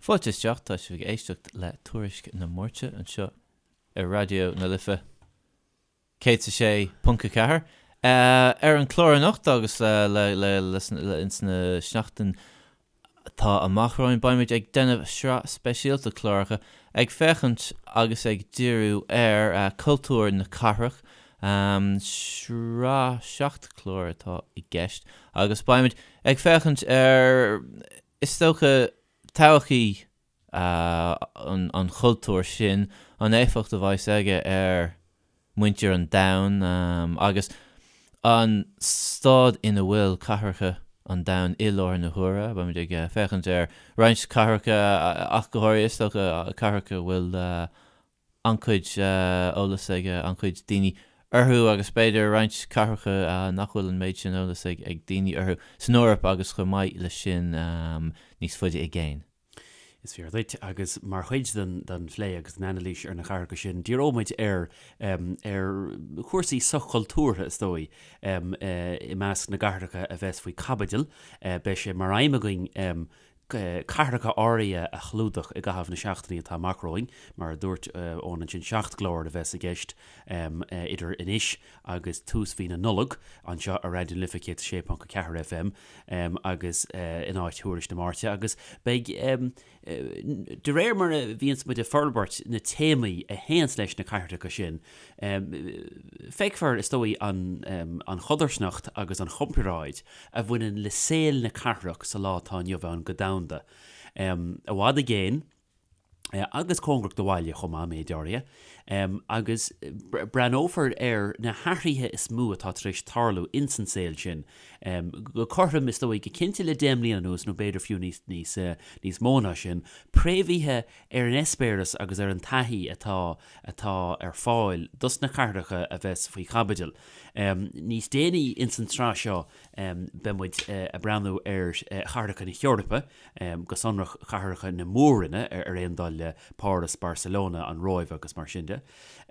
Fáilte isteach, tá sibh ag éisteacht le Tuairisc na Máirte anseo ar Raidió na Life 106.4. Ar an chlár anocht agus ins na seachtain atá amach romhainn beimid ag déanamh sraith speisialta cláracha ag féachaint agus ag díriú ar cultúr na cathrach. Sraith 7 clár atá i gceist agus beimid ag féachaint ar Is dócha, todhchaí an chultúir sin, an éifeacht a bheas aige ar mhuintir an domhain agus an staid ina bhfuil cathracha an domhain i láthair na huaire. Beimid ag féachaint ar roinnt cathracha ach go háirithe, is dócha, cathracha a bhfuil an-chuid eolas ag an-chuid daoine orthu agus b'fhéidir roinnt cathracha nach bhfuil an méid sin eolas ag daoine orthu san Eoraip agus chomh maith leis sin níos faide i gcéin. Is fíor duit, agus mar chuid den phlé agus den anailís ar na cathracha sin, díreoidh muid ar ar chúrsaí soch-chultúrtha, is dóigh, i measc na gcathracha a bheas faoi chaibidil. Beidh sé mar aidhm againn cathracha áirithe a chlúdach i gcaitheamh na seachtainí atá amach romhainn. Mar a dúirt Eoin ansin, 7 gclár a bheas i gceist idir anois agus tús mhí na Nollag anseo ar Raidió na Life 106.4 FM agus in áit Thuairisc na Máirte agus beidh De réir mar a bhíonns muid ag forbairt na téamaí a théanns leis na cathracha sin, feicfear, is dóigh, an chodarsnacht agus an chomparáid a bhaineann le saol na cathrach sa lá atá inniu ann go domhanda, i bhfad i gcéin agus cóngarach do bhaile chomh maith, méid áirithe. Agus breathnófar ar na hathruithe is mó atá tar éis tarlú ins an saol sin, Go cothrom, is dóigh, go cinnte le 10 mbliana anuas, nó b'fhéidir fiú níos, níos, níos mó ná sin, préamhaithe ar an eispéireas agus ar an taithí atá, atá ar fáil dos na cathracha a bheas faoi chaibidil. Níos déanaí ins an tsraith seo, beidh muid ag breathnú ar chathracha na hEorpa, go sonrach cathracha na mór-roinne, ar aon dul le Páras, Barcelona, an Róimh agus mar sin de.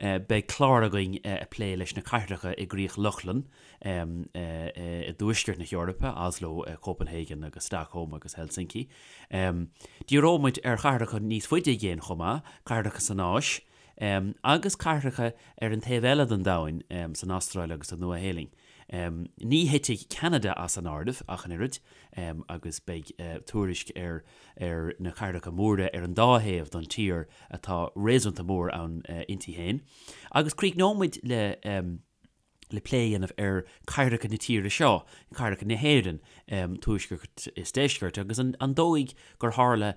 Beidh clár againn ag plé leis na cathracha i gCríoch Lochlann, i dtuaisceart na hEorpa, Oslo, Copenhagen agus Stockholm agus Helsinki. Díreoidh muid ar chathracha níos faide i gcéin chomh maith, cathracha san Áis, agus cathracha ar an taobh eile den domhain, san Astráil agus sa Nua-Shéalainn. Ní thitfidh Ceanada as an áireamh ach an oiread, agus beidh tuairisc ar ar na cathracha móra ar an dá thaobh don tír atá réasúnta mór ann inti féin. Agus críochnóidh muid le. le plé a dhéanamh ar cathracha na tíre seo, cathracha na hÉireann, tuaisceart is deisceart, agus an dóigh gur tharla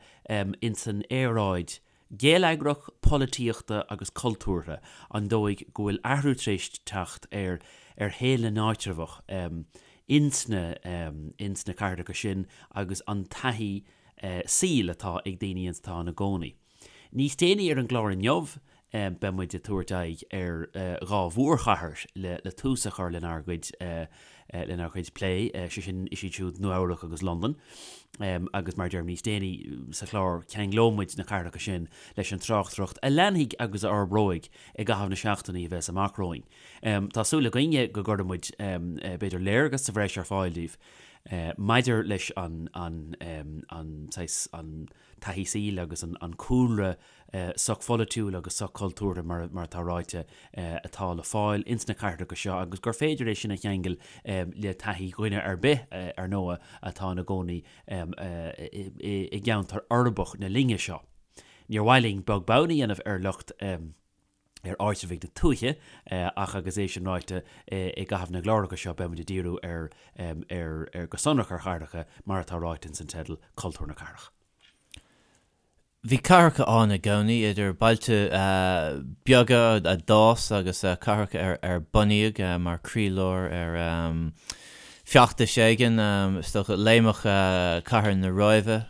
ins an aeráid gheilleagrach, polaitíochta agus cultúrtha, an dóigh go bhfuil athrú tar éis teacht ar ar shaol na n-áitreabhach ins na ins na cathracha sin agus an taithí saoil atá ag daoine atá ina gcónaí. Níos déanaí ar an gclár inniu, beidh muid ag tabhairt aghaidh ar dhá mhórchathair le tús a chur lenár gcuid lenár gcuid plé, sé sin, is iad siúd Nua Eabhrac agus Londain. Agus mar a deirim, níos déanaí sa chlár ceanglóidh muid na cathracha sin leis an tráchtaireacht a leanfaidh agus a fhorbróidh i gcaitheamh na seachtainí a bheas amach romhainn. Tá súil againne go gcuirfidh muid b'fhéidir léargas sa bhreis ar fáil daoibh maidir leis an an an saghas an taithí saoil agus an cúlra sochpholaitiúil agus sochchultúrtha, mar atá ráite, atá le fáil ins na cathracha seo agus gur féidir é sin a cheangal le taithí dhuine ar bith, ar ndóigh, atá ina gcónaí i gceantar uirbeach na linne seo. Níor mhaith linn beag beann a dhéanamh ar lucht. ar áitreabhaigh na tuaithe, ach agus é sin ráite, i gcaitheamh na gcláracha seo beidh muid ag díriú ar, ar, ar, go sonrach ar chathracha, mar atá ráite ins an teideal, Cultúr na Cathrach. Bhí cathracha ann i gcónaí, idir bailte beaga a d'fhás agus cathracha ar ar bunaíodh mar chroílár ar feachtais éigin, is dócha. Léimfeadh cathair na Róimhe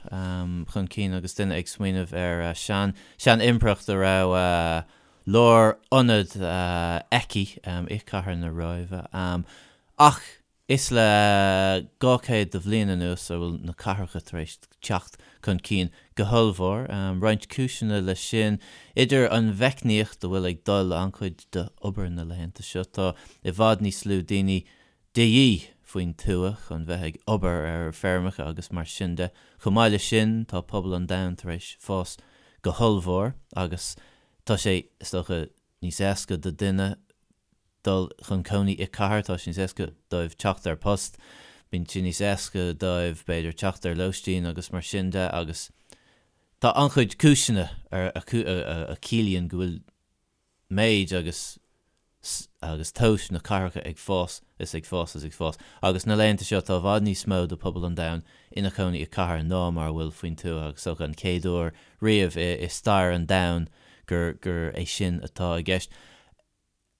chun cinn agus duine ag smaoineamh ar sean sean-impireacht a raibh lárionad aici i cathair na Róimhe. Ach is le 200 de bhliain anuas a bhfuil na cathracha tar éis teacht chun cinn go hollmhór. Roinnt cúiseanna leis sin, idir an mheicníocht a bhfuil ag dul le an-chuid d'obair na laethanta seo, tá i bhfad níos lú daoine de dhíth. faoin tuath chun bheith ag obair ar feirmeacha agus mar sin de. Chomh maith leis sin, tá pobal an domhain tar éis fás go hollmhór agus tá sé, is dócha, níos éasca do duine dul chun cónaí i cathair, tá sé níos éasca dóibh teacht ar post, bíonn sé níos éasca dóibh, b'fhéidir, teacht ar lóistín agus mar sin de agus tá an-chuid cúiseanna a chiallaíonn go bhfuil méid agus agus tomhas na cathracha ag fás is ag fás is ag fás agus na laethanta seo tá i bhfad níos mó de pobal an domhain ina chónaí i cathair ná mar a bhfuil faoin tuath agus is dócha an chéad uair riamh i stair an domhain gur gur é sin atá i gceist.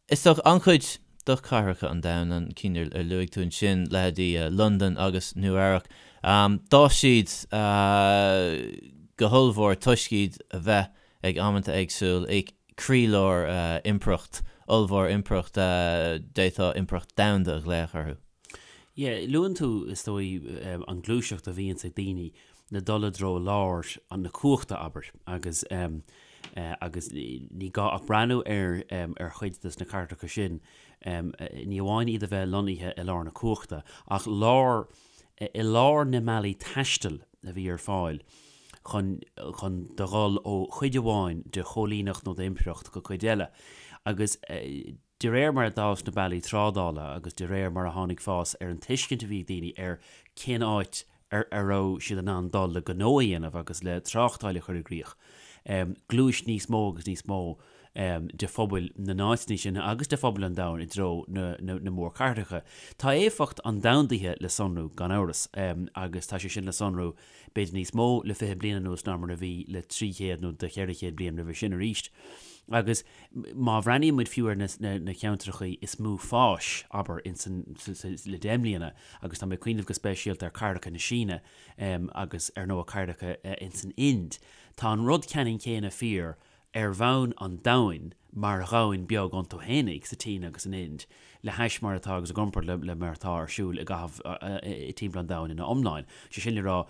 Is dócha an-chuid de chathracha an domhain, an cinn ar luaigh tú ansin, leithéidí Londain agus Nua Eabhrac, d'fhás siad go hollmhór toisc iad a bheith ag amanta éagsúil i croílár impireacht ollmhór, impireacht d'fhéadfá impireacht domhanda a ghlaoch orthu. Yeah, luann tú, is dóigh, an gluaiseacht a bhíonns ag daoine le dul i dtreo lár na cumhachta, abair, agus agus ní gá ach breathnú ar ar chuid des na cathracha sin, ní amháin iad a bheith lonnaithe i lár na cumhachta, ach lár, i lár na mbealaí taistil a bhí ar fáil chun chun do dhul ó chuid amháin de choilíneacht nó d'impireacht go cuid eile. Agus de réir mar a d'fhás na bealaí trádála agus de réir mar a tháinig fás ar an tuiscint a bhí ag daoine ar cén áit ar a raibh siad in ann dul le gnó a dhéanamh agus le tráchtáil a chur i gcrích, ghluais níos mó agus níos mó de phobail na n-áiteanna sin agus de phobail an domhain i dtreo na mórchathracha. Tá éifeacht an domhandaithe le sonrú, gan amhras, agus tá sé sin le sonrú b'fhéidir níos mó le 20 bliain anuas ná mar a bhí le 300 nó do 400 bliain roimhe sin arís. Agus má bhreathnaíonn muid fiú ar na ceantracha is mó fáis, abair, insan, le 10 mbliana, agus tá mé ag cuimhneamh go speisialta ar cathracha na Síne agus ar ndóigh cathracha insan Ind, tá an rud ceannann céanna fíor ar bhonn an domhain mar dhomhan beag iontu fhéinig, sa tSín agus san Ind, le hais mar atá agus i gcomparáid le mar atá ar siúl i gcaitheamh timpeall an domhain ina iomláin. Sé sin le rá,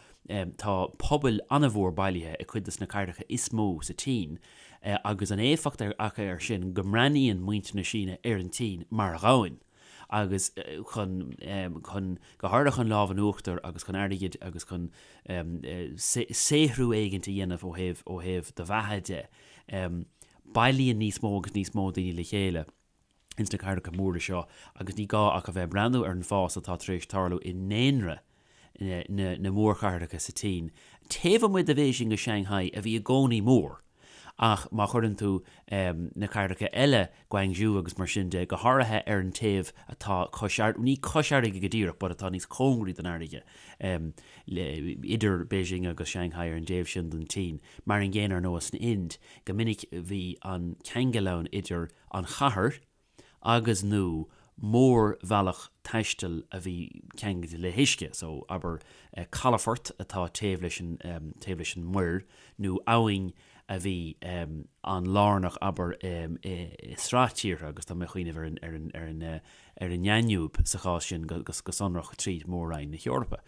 tá pobail an-mhór bailithe i cuid de na cathracha is mó sa tSín agus an éifeacht acu air sin go mbreathnaíonn muintir na Síne ar an tSín mar dhomhan. agus chun, chun, go háirithe chun lámh in uachtar agus chun airgid agus chun saothrú éigint a dhéanamh ó thaobh, ó thaobh do bheatha de. Bailíonn níos mó agus níos mó daoine le chéile ins na cathracha móra seo agus ní gá ach a bheith ag breathnú ar an bhfás atá tar éis tarlú i ndaonra na, na mórchathracha sa tSín, taobh amuigh de Bhéising agus Shanghai a bhí i gcónaí mór. Ach má chuireann tú na cathracha eile, Guangzhou agus mar sin de, go háirithe ar an taobh atá cois, ní cois fharraige go díreach, but atá níos cóngaraí don fharraige, idir Beijing agus Shanghai ar an dtaobh sin den tSín, mar an gcéanna ar ndóigh san Ind, go minic bhí an ceangal ann idir an chathair, agus, nó mórbhealach taistil a bhí ceangailte le huisce, so abair calafort atá taobh leis an, taobh leis an muir, nó abhainn a bhí an-lárnach, abair, i sraith tíortha, agus tá mé ag cuimhneamh ar an, ar an, ar an, ar an nDainiúib sa chás sin go, go sonrach tríd Mór-Roinn na hEorpa.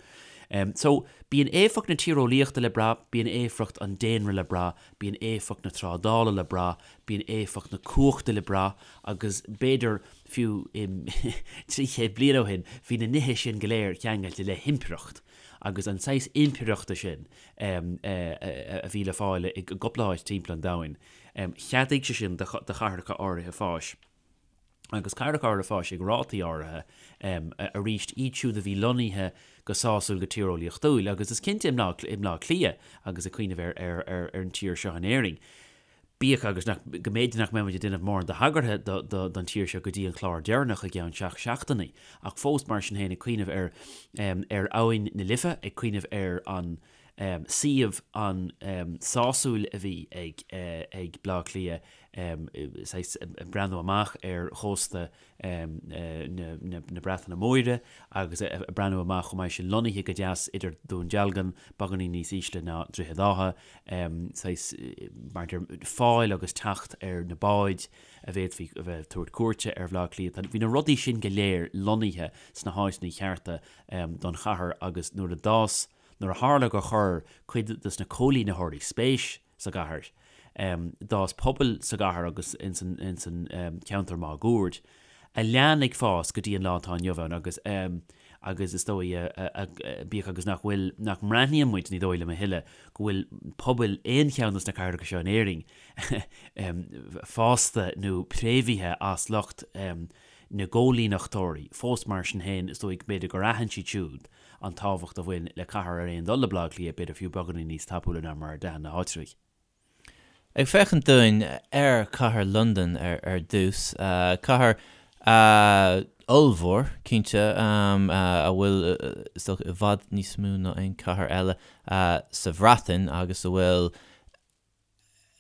So, bíonn éifeacht na tíreolaíochta le brath, bíonn éifeacht an daonra le brath, bíonn éifeacht na trádála le brath, bíonn éifeacht na cumhachta le brath agus b'fhéidir fiú 300 bliain ó shin bhí na nithe sin go léir ceangailte le himpireacht agus an saghas impireachta sin a bhí le fáil i gcúpla áit timpeall an domhain, cheadaigh sé sin do chathracha áirithe fáis. agus cathracha áirithe fáis ag rátaí áirithe arís, iad siúd a bhí lonnaithe go sásúil go tíreolaíochtúil, agus is cinnte i mBleá Cliath agus ag cuimhneamh ar ar an tír seo in Éirinn, bíodh agus nach, go mb'fhéidir nach mbeidh muid ag déanamh mórán de thagartha don tír seo go dtí an clár deireanach i gceann seacht seachtainí, ach fós mar sin féin ag cuimhneamh ar ar Abhainn na Life, ag cuimhneamh ar an suíomh an-sásúil a bhí ag ag Bleá Cliath, saghas ag breathnú amach ar chósta na Breataine Móire agus ag breathnú amach chomh maith sin lonnaithe go deas idir Dún Dealgan, beagáinín níos ísle ná Droichead Átha, saghas mar a deir fáil agus teacht ar na báid a bhféadfaí a bheith ag tabhairt cuairte ar Bhleá Cliath. Bhí na rudaí sin go léir lonnaithe sna háiteanna cearta don chathair agus nuair a d'fhás, nuair a tharla gur chuir cuid de na coilínitheoirí spéis sa gcathair. D'fhás pobail sa gcathair agus ins an ceantar máguaird, a lean ag fás go dtí an lá atá inniu ann agus. Agus is dóigh, bíodh agus nach bhfuil, nach mbreathnaíonn muid, ní dóigh liom a thuilleadh, go bhfuil pobail aon cheann de na cathracha seo in Éirinn fásta nó préamhaithe as lucht na gcóilíneachtóirí, fós mar sin féin, is dóigh b'fhéidir gur aithin siad siúd an tábhacht a bhain le cathair ar aon dul le Baile Átha Cliath, b'fhéidir fiú beagáinín níos tapúla ná mar a d'aithin na háitribhigh. Ag féachaint dúinn ar chathair Londan ar dtús, cathair ollmhór, cinnte, a bhfuil, is dócha, i bhfad níos mó ná aon chathair eile sa Bhreatain agus a bhfuil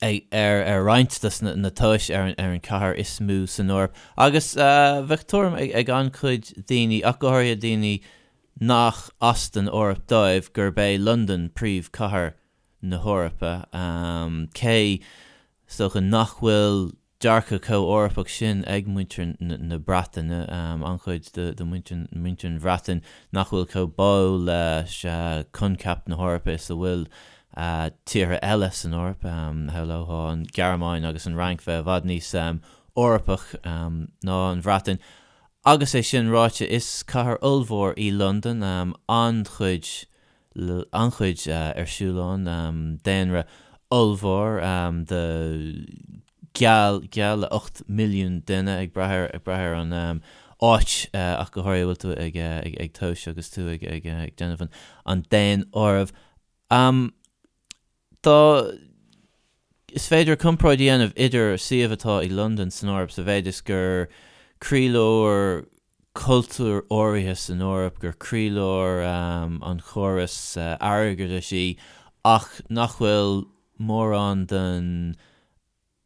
ar roinnt de na tomhais ar an chathair is mó san Eoraip. Agus bheadh tuairim ag an-chuid daoine, ach go háirithe daoine nach as don Eoraip dóibh, gurb é Londain príomhchathair na hEorpa, cé, is dócha, nach bhfuil dearcadh chomh Eorpach sin ag muintir na Breataine, an-chuid de mhuintir an Bhreatain nach bhfuil chomh báúil leis coincheap na hEorpa is a bhfuil tíortha eile san Eoraip, shamhlófá an Ghearmáin agus an Fhrainc bheith i bhfad níos Eorpach ná an Bhreatain. Agus é sin ráite, is cathair ollmhór í Londain, an-chuid an-chuid ar siúl ann, daonra ollmhór de geall geall le 8 milliún duine ag brath ar ag brath ar an áit ach go háirithe a bhfuil tú ag ag tomhas agus tú ag ag ag déanamh an an daonáireamh. Dá Is féidir comparáid a dhéanamh idir suíomh atá ag Londain san Eoraip sa mhéid is gur croílár cultúir áirithe san Eoraip, gur croílár an chórais airgeadais í, ach nach bhfuil mórán den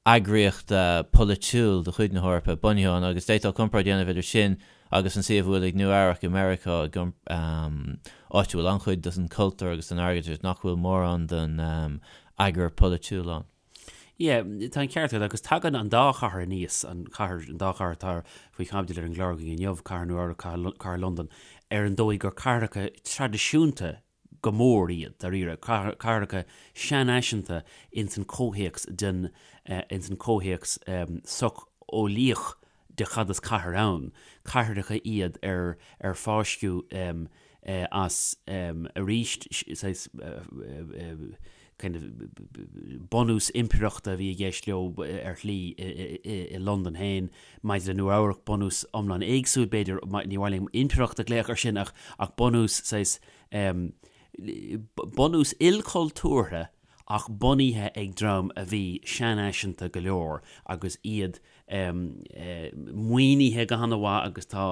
eagraíocht pholaitiúil de chuid na hEorpa bunaithe ann, agus d'fhéadfá comparáid a dhéanamh idir sin agus an suíomh a bhfuil ag Nua Eabhrac i Meiriceá, áit a bhfuil an-chuid den chultúr agus den airgeadas nach bhfuil mórán den eagar polaitiúil ann. Yeah, tá an ceart agat, agus tagann an dá chathair aníos, an chathair, an dá chathair atá faoi chaibidil ar an gclár againn inniu, Cathair Nua Eabhrac, Cathair Londan, ar an dóigh gur cathracha traidisiúnta go mór iad, dáiríre, cathracha seanfhaiseanta ins an comhthéacs den, ins an comhthéacs socheolaíoch de cad is cathair ann. Cathracha iad ar, ar fáisceadh as arís saghas kind of bunús impireachta a bhí i gceist leo ar shlí i Londain féin. Maidir le Nua Eabhrac, bunús iomlán éagsúil, b'fhéidir, ní mhaith liom impireacht a ghlaoch air sin ach ach bunús saghas bunús ilchultúrtha ach bunaithe ag dream a bhí seanfhaiseanta go leor agus iad maoinithe go han-mhaith agus tá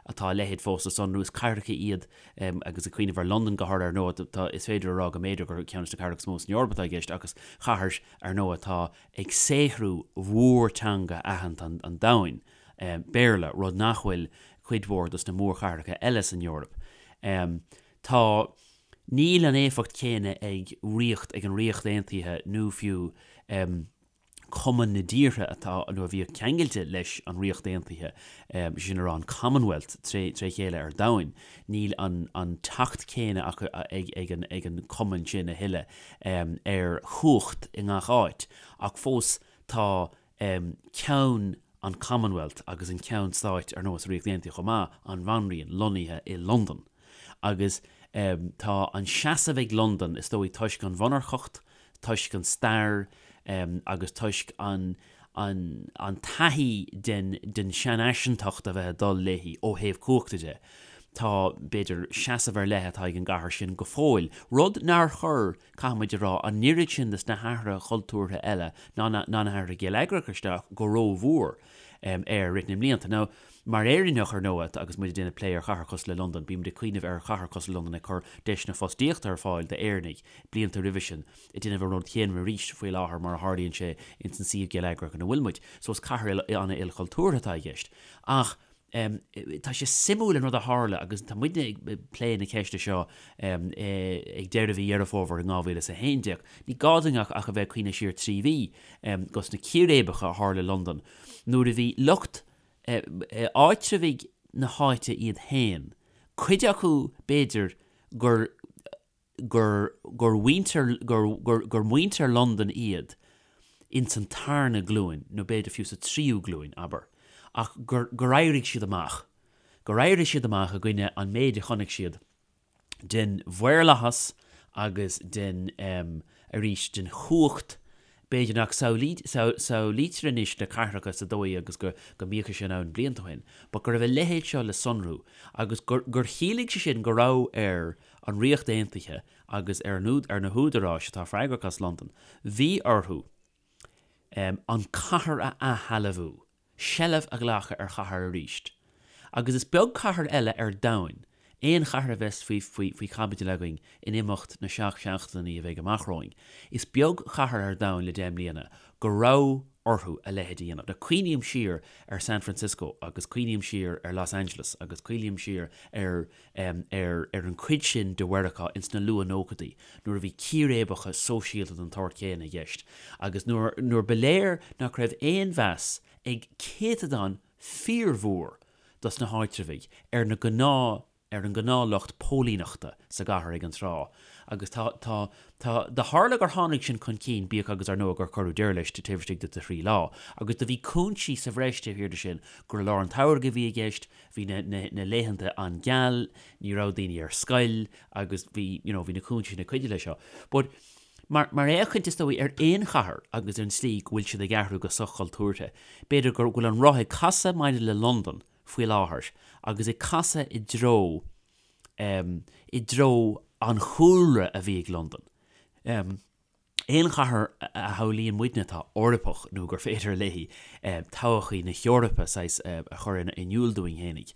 atá a leithéid fós le sonrú. Is cathracha iad agus ag cuimhneamh ar Londain go háirithe ar ndóigh, tá, is féidir a rá go mb'fhéidir gur ceann de na cathracha is mó san Eoraip atá i gceist agus cathair ar ndóigh atá ag saothrú mhórteanga aitheanta an domhain, Béarla, rud nach bhfuil cuid mhór dos na mórchathracha eile san Eoraip. Tá, níl an éifeacht chéanna ag ríocht, ag an Ríocht Aontaithe nó fiú Cumann na dtíortha atá, nó a bhíodh ceangailte leis an Ríocht Aontaithe, sin a rá an Commonwealth tré chéile ar domhain, níl an an teacht céanna acu ag ag an ag an cumann sin a thuilleadh ar chumhacht i ngach áit, ach fós tá ceann an Commonwealth agus an ceann stáit ar ndóigh sa Ríocht Aontaithe chomh maith, an Bhanríon, lonnaithe i Londain. Agus tá an seasamh ag Londain, is dóigh toisc an mhonarcacht, toisc an stair agus toisc an an an taithí den den seanfhaiseantacht a bheith ag dul léi ó thaobh cumhachta de. Tá, b'fhéidir, seasamh ar leith atá ag an gcathair sin go fóill, rud nár chuir, caithfidh muid a rá, an oiread sin de na hathruithe cultúrtha eile ná na ná na hathruithe geilleagracha isteach go rómhór air i rith na mblianta. Now, mar Éireannach, ar ndóigh, agus muid ag déanamh plé ar chathair cosúil le Londain, bímid ag cuimhneamh ar chathair cosúil le Londain ag cur deiseanna fostaíochta ar fáil d'Éireannaigh blianta roimhe sin, ag déanamh an rud chéanna arís faoi láthair mar a tharlaíonn sé ins an suíomh geilleagrach ina bhfuil muid. So is cathair an-ilchultúrtha atá i gceist. Ach tá sé suimiúil an rud a tharla agus tá muidne ag plé na ceiste seo ag deireadh mhí Dheireadh Fómhair in 2011. Ní gá dúinn ach a bheith ag cuimhneamh siar 3 mhí dos na círéibeacha a tharla i Londain nuair a bhí lucht áitreabhaigh na háite iad féin, cuid acu b'fhéidir gur gur gur mhuintir gur gur gur muintir Londan iad ins an tarna glúin nó b'fhéidir fiú sa tríú glúin, abair, ach gur gur éirigh siad amach. Gur éirigh siad amach i gcoinne an méid a chonaic siad den mhaorlathas agus den, arís, den chumhacht, b'fhéidir nach samhlaítear anois na cathracha sa dóigh agus go mbíodh sé sin ann blianta ó shin, but go raibh a leithéid seo le sonrú agus gur chiallaigh sé sin go raibh ar an Ríocht Aontaithe agus ar na húdaráis atá freagrach as Londain, bhí orthu an cathair a athshealbhú. seilbh a ghlacadh ar chathair arís. Agus is beag cathair eile ar domhain, aon chathair a bheas faoi faoi chaibidil againn in imeacht na seacht seachtainí a bheidh amach romhainn, is beag cathair ar domhan le 10 mbliana go raibh orthu a leithéid a dhéanamh. Now cuimhním siar ar San Francisco agus cuimhním siar ar Los Angeles agus cuimhním siar ar ar ar an chuid sin de Mheiriceá ins na luath-nóchaidí nuair a bhí círéibeacha sóisialta den tsórt chéanna i gceist agus nuair nuair ba léir nach raibh aon mheas ag céatadán fíormhór dos na háitreabhaigh ar na gnáth ar an ngnáthlucht póilíneachta sa gcathair ag an tráth agus tá tá tá do tharla gur tháinig sin chun cinn bíodh agus ar ndóigh gur cuireadh deireadh leis taobh istigh de thrí lá agus do bhí cúinsí sa bhreis taobh thiar de sin gur i lár an tsamhraidh a bhí i gceist Bhí na, na, na laethanta an-gheal, ní raibh daoine ar scoil agus bhí, you know, bhí na cúinsí sin ag cuidiú leis seo. But mar, mar fhéachaint is dóigh ar aon chathair agus ar an tslí go bhfuil siad ag athrú go soch-chultúrtha, b'fhéidir go bhfuil an roth ag casadh maidir le Londain faoi láthair agus ag casadh i dtreo, em, i dtreo an chúlra a bhí ag Londain. Em. Aon chathair a shamhlaíonn muidne atá Eorpach nó gur féidir léi todhchaí na hEorpa saghas a chur in iúl dúinn fhéinig,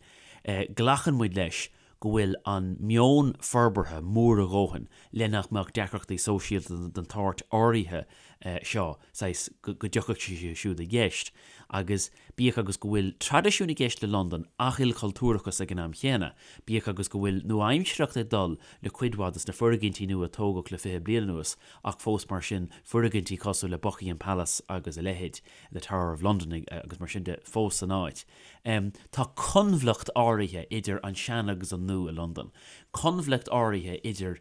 glacann muid leis go bhfuil an meon forbartha mór a dhóthain le nach mbeadh deacrachtaí sóisialta den tsórt áirithe seo saghas go dtiocfadh sé siúd i gceist agus Bíodh agus go bhfuil traidisiún i gceist le Londain ach ilchultúrachas ag an am chéanna, bíodh agus go bhfuil nua-aimsearthacht ag dul le cuid mhaith de na foirgintí nua a tógadh le 20 bliain anuas ach fós mar sin foirgintí cosúil le Buckingham Palace agus a leithéid, the Tower of London agus mar sin de fós san áit. Tá coinbhleacht áirithe idir an sean agus an nua i Londain. Coinbhleacht áirithe idir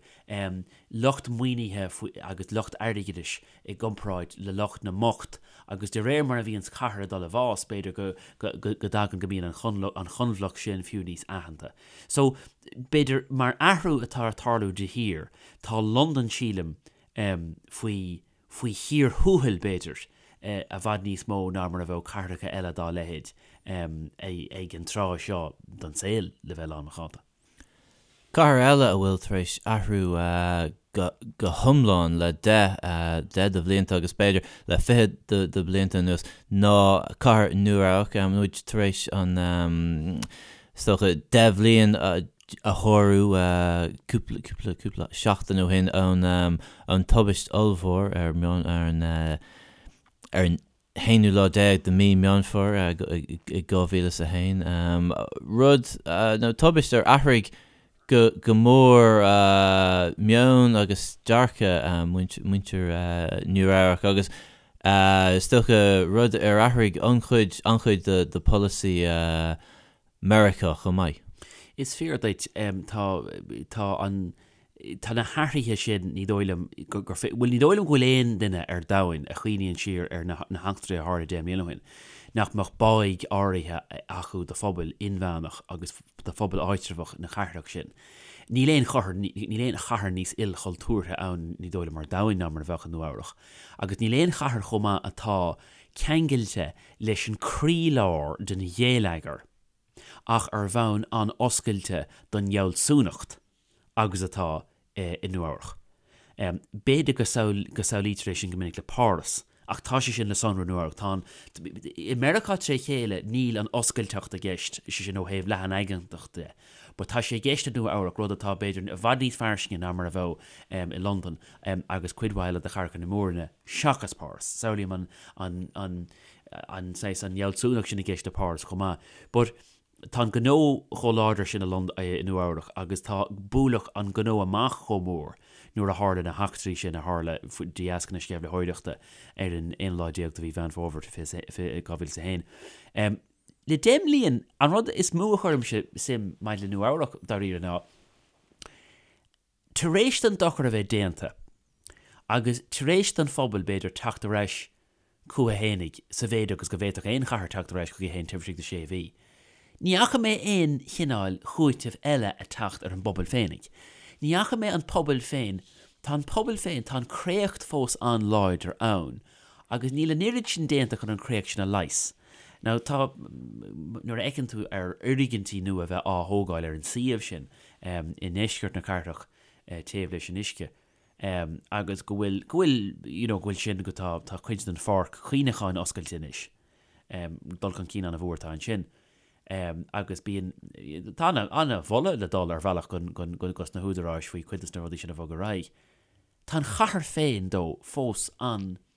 lucht maoinithe agus lucht airgeadais i gcomparáid le lucht na mbocht agus de réir mar a bhíonns cathair ag dul i bhfás, b'fhéidir go go dtagann go mbíonn an choinbhleacht sin fiú níos aitheanta. So, b'fhéidir mar athrú atá ag tarlú de shíor, tá Londain, sílim, faoi faoi chíor thuathail, b'fhéidir, i bhfad níos mó ná mar a bheadh cathracha eile dá leithéid ag an tráth seo den saol, le bheith lánmhacánta. Cathair eile a bhfuil tar éis athrú go hiomlán le 10 de bhlianta agus b'fhéidir le 20 de bhlianta anuas ná cathair Nua-Eabhrac. Tá muid tar éis an, is dócha, 10 bhliain a shárú cúpla, cúpla, cúpla seachtain ó shin ón tubaist ollmhór ar an, ar an haonú lá déag de mí Meán Fómhair i 2001, rud nó tubaist ar athraigh go mór meon agus dearcadh muintir Nua Eabhrac agus is dócha rud ar athraigh an-chuid, an-chuid de pholasaí Meiriceá chomh maith. Is fíor duit. Tá, tá an, tá na hathruithe sin, ní dóigh liom gur, bhuel, ní dóigh liom go bhfuil aon duine ar domhain a chuimhníonn siar ar na heachtraí a tharla 10 mbliana ó shin, nach mbeadh báidh áirithe acu do phobal inmheánach agus do phobal áitreabhach na cathrach sin. Níl aon chathair, níl aon chathair níos ilchultúrtha ann, ní dóigh liom, ar domhain ná mar a bheadh i Nua Eabhrach. Agus níl aon chathair chomh maith atá ceangailte leis an croílár den ghéilleagar ach ar bhonn an-oscailte don fhealsúnacht agus atá i Nua Eabhrach. B'fhéidir go samhlaítear é sin go minic le Páras, ach tá sé sin le sonrú i Nua Eabhrac. Tá an, i Meiriceá tré chéile níl an oscailteacht i gceist, sé sin ó thaobh leathan-aigeantacht de, but tá sé i gceist i Nua Eabhrac, rud atá b'fhéidir i bhfad níos fairsinge ná mar a bheadh i Londain agus cuid mhaith eile de chathracha na mór-roinne seachas Páras. Samhlaím an, an, an, an saghas, an fhealsúnacht sin i gceist le Páras chomh maith. But tá an gnó chomh láidir sin i Lond, i Nua Eabhrac agus tá buaileadh an gnó amach chomh mór nuair a tharla na heachtraí sin a tharla de dheasca na sceimhlitheoireachta ar an aon lá déag de mhí Mheán Fómhair 2001. Le 10 mbliain, an rud is mó a chuirimse suim maidir le Nua Eabhrac dáiríre ná, Tar éis don dochar a bheith déanta, agus tar éis don phobal, b'fhéidir, teacht ar ais chucu fhéinig, sa mhéid agus go bhféadfadh aon chathair teacht ar ais chuici féin taobh istigh de sé mhí, Ní fhaca mé aon chineál chúitimh eile ag teacht ar an bpobal féinig. Ní fhaca mé an pobal féin, tá an pobal féin, tá an créacht fós an-láidir ann agus níl an oiread sin déanta chun an créacht sin a leigheas. Now tá, nuair a fheiceann tú ar fhoirgintí nua a bheith á thógáil ar an suíomh sin i ndeisceart na cathrach taobh leis an uisce agus go bhfuil, go bhfuil, you know, go bhfuil sin, go tá, tá cuid den pháirc chuimhneacháin oscailte anois. Dul chun cinn an-mhór atá ansin. Agus bíonn, tá ana-mholadh le dul ar bhealach dos na húdaráis faoi cuid dos na rudaí sin a bhogadh ar aghaidh. Tá an chathair féin though fós an-scriosta,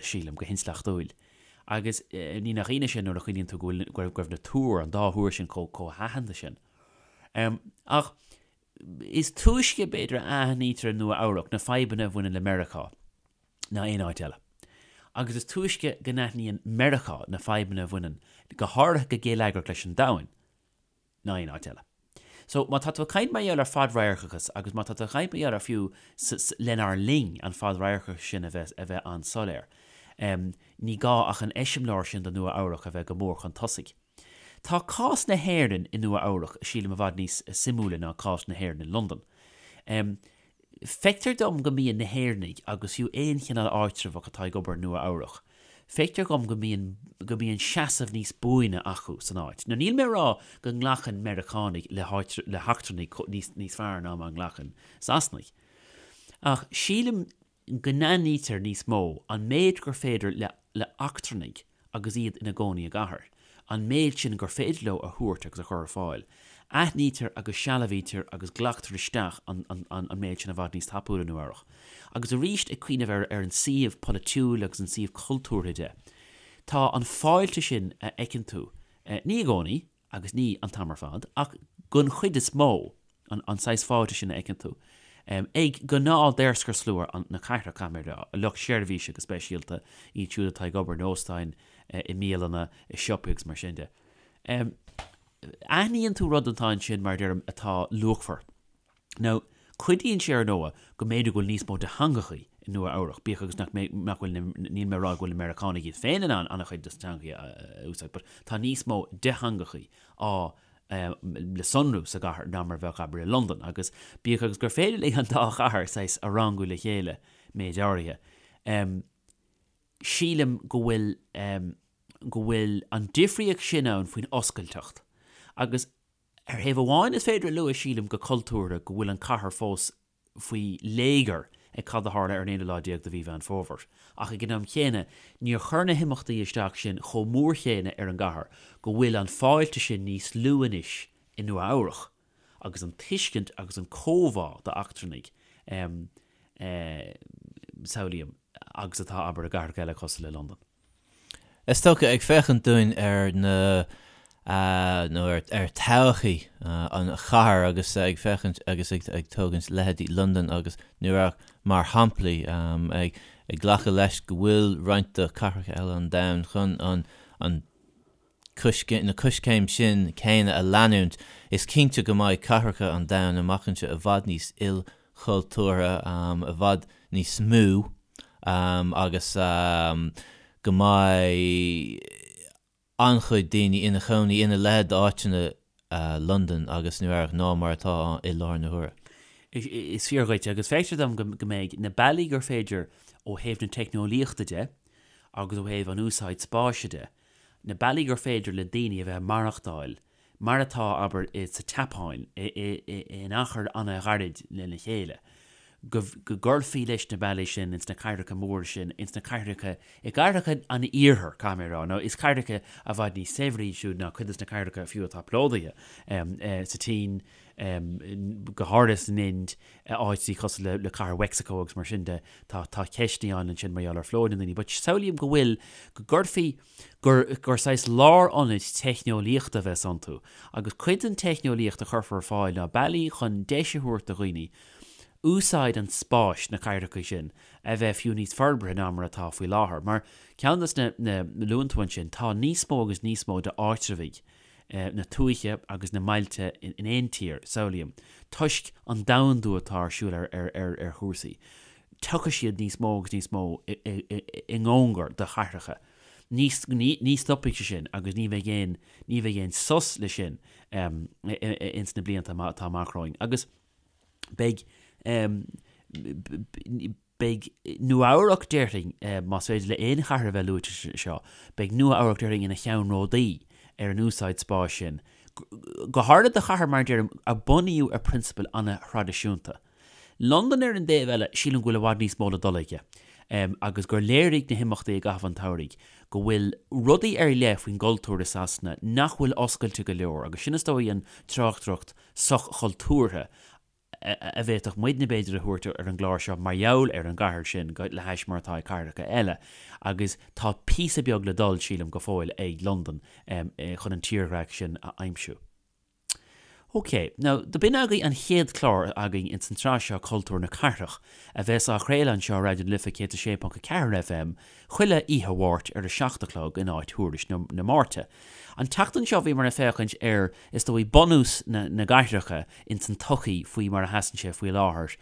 sílim, go hintleachtúil. Agus ní nach ionadh sin nuair a chuimhníonn tú go bhfuil, go raibh na túir, an dá thúr sin chomh, chomh haitheanta sin. Ach is túisce, b'fhéidir, a aithnítear i Nua Eabhrac na fadhbanna a bhaineann le Meiriceá ná aon áit eile. Agus is túisce go n-aithníonn Meiriceá na fadhbanna a bhaineann, go háirithe go geilleagrach leis an domhan, ná aon áit eile. So, má tá tú ag caint mar gheall ar fadradharcachas agus má tá tú ag caint mar gheall ar fiú lenár linn an fadradharcachas sin a bheith a bheith an-soiléir, ní gá ach an eiseamláir sin de Nua Eabhrac a bheith go mór chun tosaigh. Tá cás na hÉireann i Nua Eabhrac, sílim, i bhfad níos suimiúla ná cás na hÉireann i Londain. Feictear dom go mbíonn na hÉireannaigh, agus fiú aon chineál áitreabhach atá ag obair i Nua Eabhrac, feictear dhom go mbíonn, go mbíonn seasamh níos buaine acu san áit. Now níl mé ag rá go nglacann Meiriceánaigh le háit, le heachtrannaigh níos, níos fearr ná mar a nglacann Sasanaigh. Ach sílim go n-aithnítear níos mó an méid gur féidir le le heachtrannaigh agus iad ina gcónaí i gcathair, an méid sin gur féidir leo a thabhairt agus a chur ar fáil. Aithnítear agus sealbhaítear agus glactar isteach an an an méid sin i bhfad níos tapúla i Nua Eabhrac. Agus arís ag cuimhneamh ar ar an suíomh polaitiúil agus an suíomh cultúrtha de, tá an fáilte sin a fheiceann tú, ní i gcónaí, agus ní an t-am ar fad, ach den chuid is mó, an saghas fáilte sin a fheiceann tú ag gnáth-daorscarslua na cathrach, caithfidh mé a rá, lucht seirbhíse go speisialta, iad siúd atá ag obair in óstáin, i mbialanna, i siopaí agus mar sin de. Aithníonn tú rud atá ansin, mar a deirim, atá luachmhar. Now, cuidíonn sé ar ndóigh go mb'fhéidir go bhfuil níos mó de theangachaí i Nua Eabhrach, bíodh agus nach mbeidh, nach bhfuil na, níl mé ag rá go bhfuil na Meiriceánaigh iad féin in ann an-chuid de na teangachaí a úsáid, but tá níos mó de theangachaí á le sonrú sa gcathair ná mar a bheadh, abair, i Londain, agus bíodh agus gur féidir linn an dá chathair saghas a rangú le chéile méid áirithe, sílim go bhfuil, go bhfuil an difríocht sin ann faoin oscailteacht agus. Ar thaobh amháin is féidir a lua, sílim, go cultúrtha go bhfuil an cathair fós faoi léigear ag cad a tharla ar an aonú lá déag de mhí Mheán Fómhair, ach ag an am chéanna níor chuir na himeachtaí isteach sin chomh mór chéanna ar an gcathair go bhfuil an fáilte sin níos lú anois i Nua Eabhrach agus an tuiscint agus an comhbhá d'eachtrannaigh, samhlaím, agus atá, abair, i gcathracha eile cosúil le Londain. Is dócha, ag féachaint dúinn ar na, nó ar todhchaí an chathair agus ag féachaint agus ag tógaint leithéidí Londain agus Nua Eabhrac mar shamplaí, ag glacadh leis go bhfuil roinnt de chathracha eile an domhain chun an an na coiscéim sin céanna a leanúint, is cinnte go mbeidh cathracha an domhain amach anseo i bhfad níos ilchultúrtha, i bhfad níos mó. agus go mbeidh an-chuid daoine ina chónaí ina leithéid d'áiteanna Londain agus Nua Eabhrac ná mar atá i láthair na huaire. Is fíor dhuit, agus feictear dom go mbeidh na bealaí gur féidir ó thaobh na teicneolaíochta de agus ó thaobh an úsáid spáis de, na bealaí gur féidir le daoine a bheith ag maireachtáil mar atá, abair, sa tSeapáin, in achar an-ghairid lena chéile, go gcuirfí leis na bealaí sin ins na cathracha móra sin, ins na cathracha, i gcathracha an iarthair, caithfidh mé a rá, nó is cathracha i bhfad níos saibhre iad siúd ná cuid des na cathracha fiú atá plódaithe, sa tSín, go háirithe san Ind, áiteacha cosúil le cathair Mheicsiceo agus mar sin de, tá ceisteanna ann ansin mar gheall ar phlódú na ndaoine, but samhlaím go bhfuil, go gcuirfí, gur gur saghas lárionaid teicneolaíochta a bheas iontu, agus cuid den teicneolaíocht a chuirfear ar fáil ná bealaí chun deis a thabhairt do dhaoine úsáid an spáis sna cathracha sin a bheith fiú níos forbartha ná mar atá faoi láthair. Mar ceann des na na luann tú ansin, tá níos mó agus níos mó d'áitreabhaigh na tuaithe agus na mbailte in aon tír, samhlaím, toisc an domhandú atá ar siúl ar ar ar ar chúrsaí. Tiocfaidh siad níos mó agus níos mó i i i ngnóngar do chathracha. Ní, ní stopfaidh sé sin agus ní bheidh aon, ní bheidh aon sos le sin ins na blianta atá amach romhainn. Agus beidh, beidh Nua-Eabhrac, déarfainn, más féidir le aon chathair a bheith luaite anseo, beidh Nua-Eabhrac, déarfainn, ina cheannródaí ar an úsáid spáis sin, go háirithe do chathair, mar a deirim, a bunaíodh ar phrionsabail an-thraidisiúnta. Londain ar an dtaobh eile, sílim go bhfuil i bhfad níos mó le dul aige agus gur léirigh na himeachtaí i gcaitheamh an tsamhraidh go bhfuil rudaí ar leith faoin gcultúr i Sasana nach bhfuil oscailte go leor agus sin is dóigh an tráchtaireacht soch-chultúrtha a bhféadfadh muidne b'fhéidir a thabhairt ar an gclár seo mar gheall ar an gcathair sin le hais mar atá ag cathracha eile agus tá píosa beag le dul, sílim, go fóill ag Londain chun an tírdhreach sin a aimsiú. Ok, now, do b'in agaibh an chéad chlár againn ins an tsraith seo Cultúr na Cathrach, a bheas á chraoladh anseo ar Raidió na Life 106.4 FM chuile oíche Mháirt ar a 7 a chlog in áit Thuairisc na Máirte. An tseachtain seo bhíomar ag féachaint ar, is dóigh, bunús na na gcathracha ins an tsochaí faoi mar a sheasann sé faoi láthair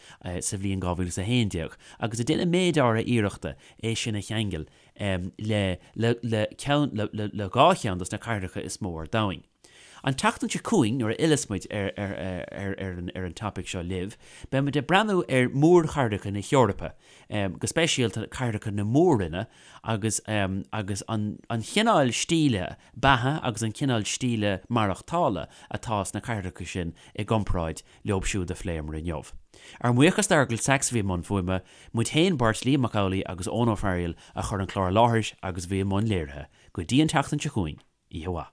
sa bhliain 2011 agus ag déanamh méid áirithe iarrachta é sin a cheangal le le le ceann le le le dhá cheann dos na cathracha is mó ar domhain. An tseachtain seo chugainn, nuair a fhilleas muid ar ar an topaic seo libh, beidh muid ag breathnú ar mhórchathracha na hEorpa, go speisialta cathracha na mór-roinne agus agus an an chineál stíle beatha agus an cineál stíle maireachtála atá sna cathracha sin i gcomparáid leo siúd a phléamar inniu. Ár mbuíochas d'Fheargal Sachs a bhí i mbun fuaime, muid féin beirt, Liam Mac Amhlaigh agus Eoin Ó Fearghaíl a chuir an clár i láthair agus a bhí i mbun léirithe. Go dtí an tseachtain seo chugainn, oíche mhaith.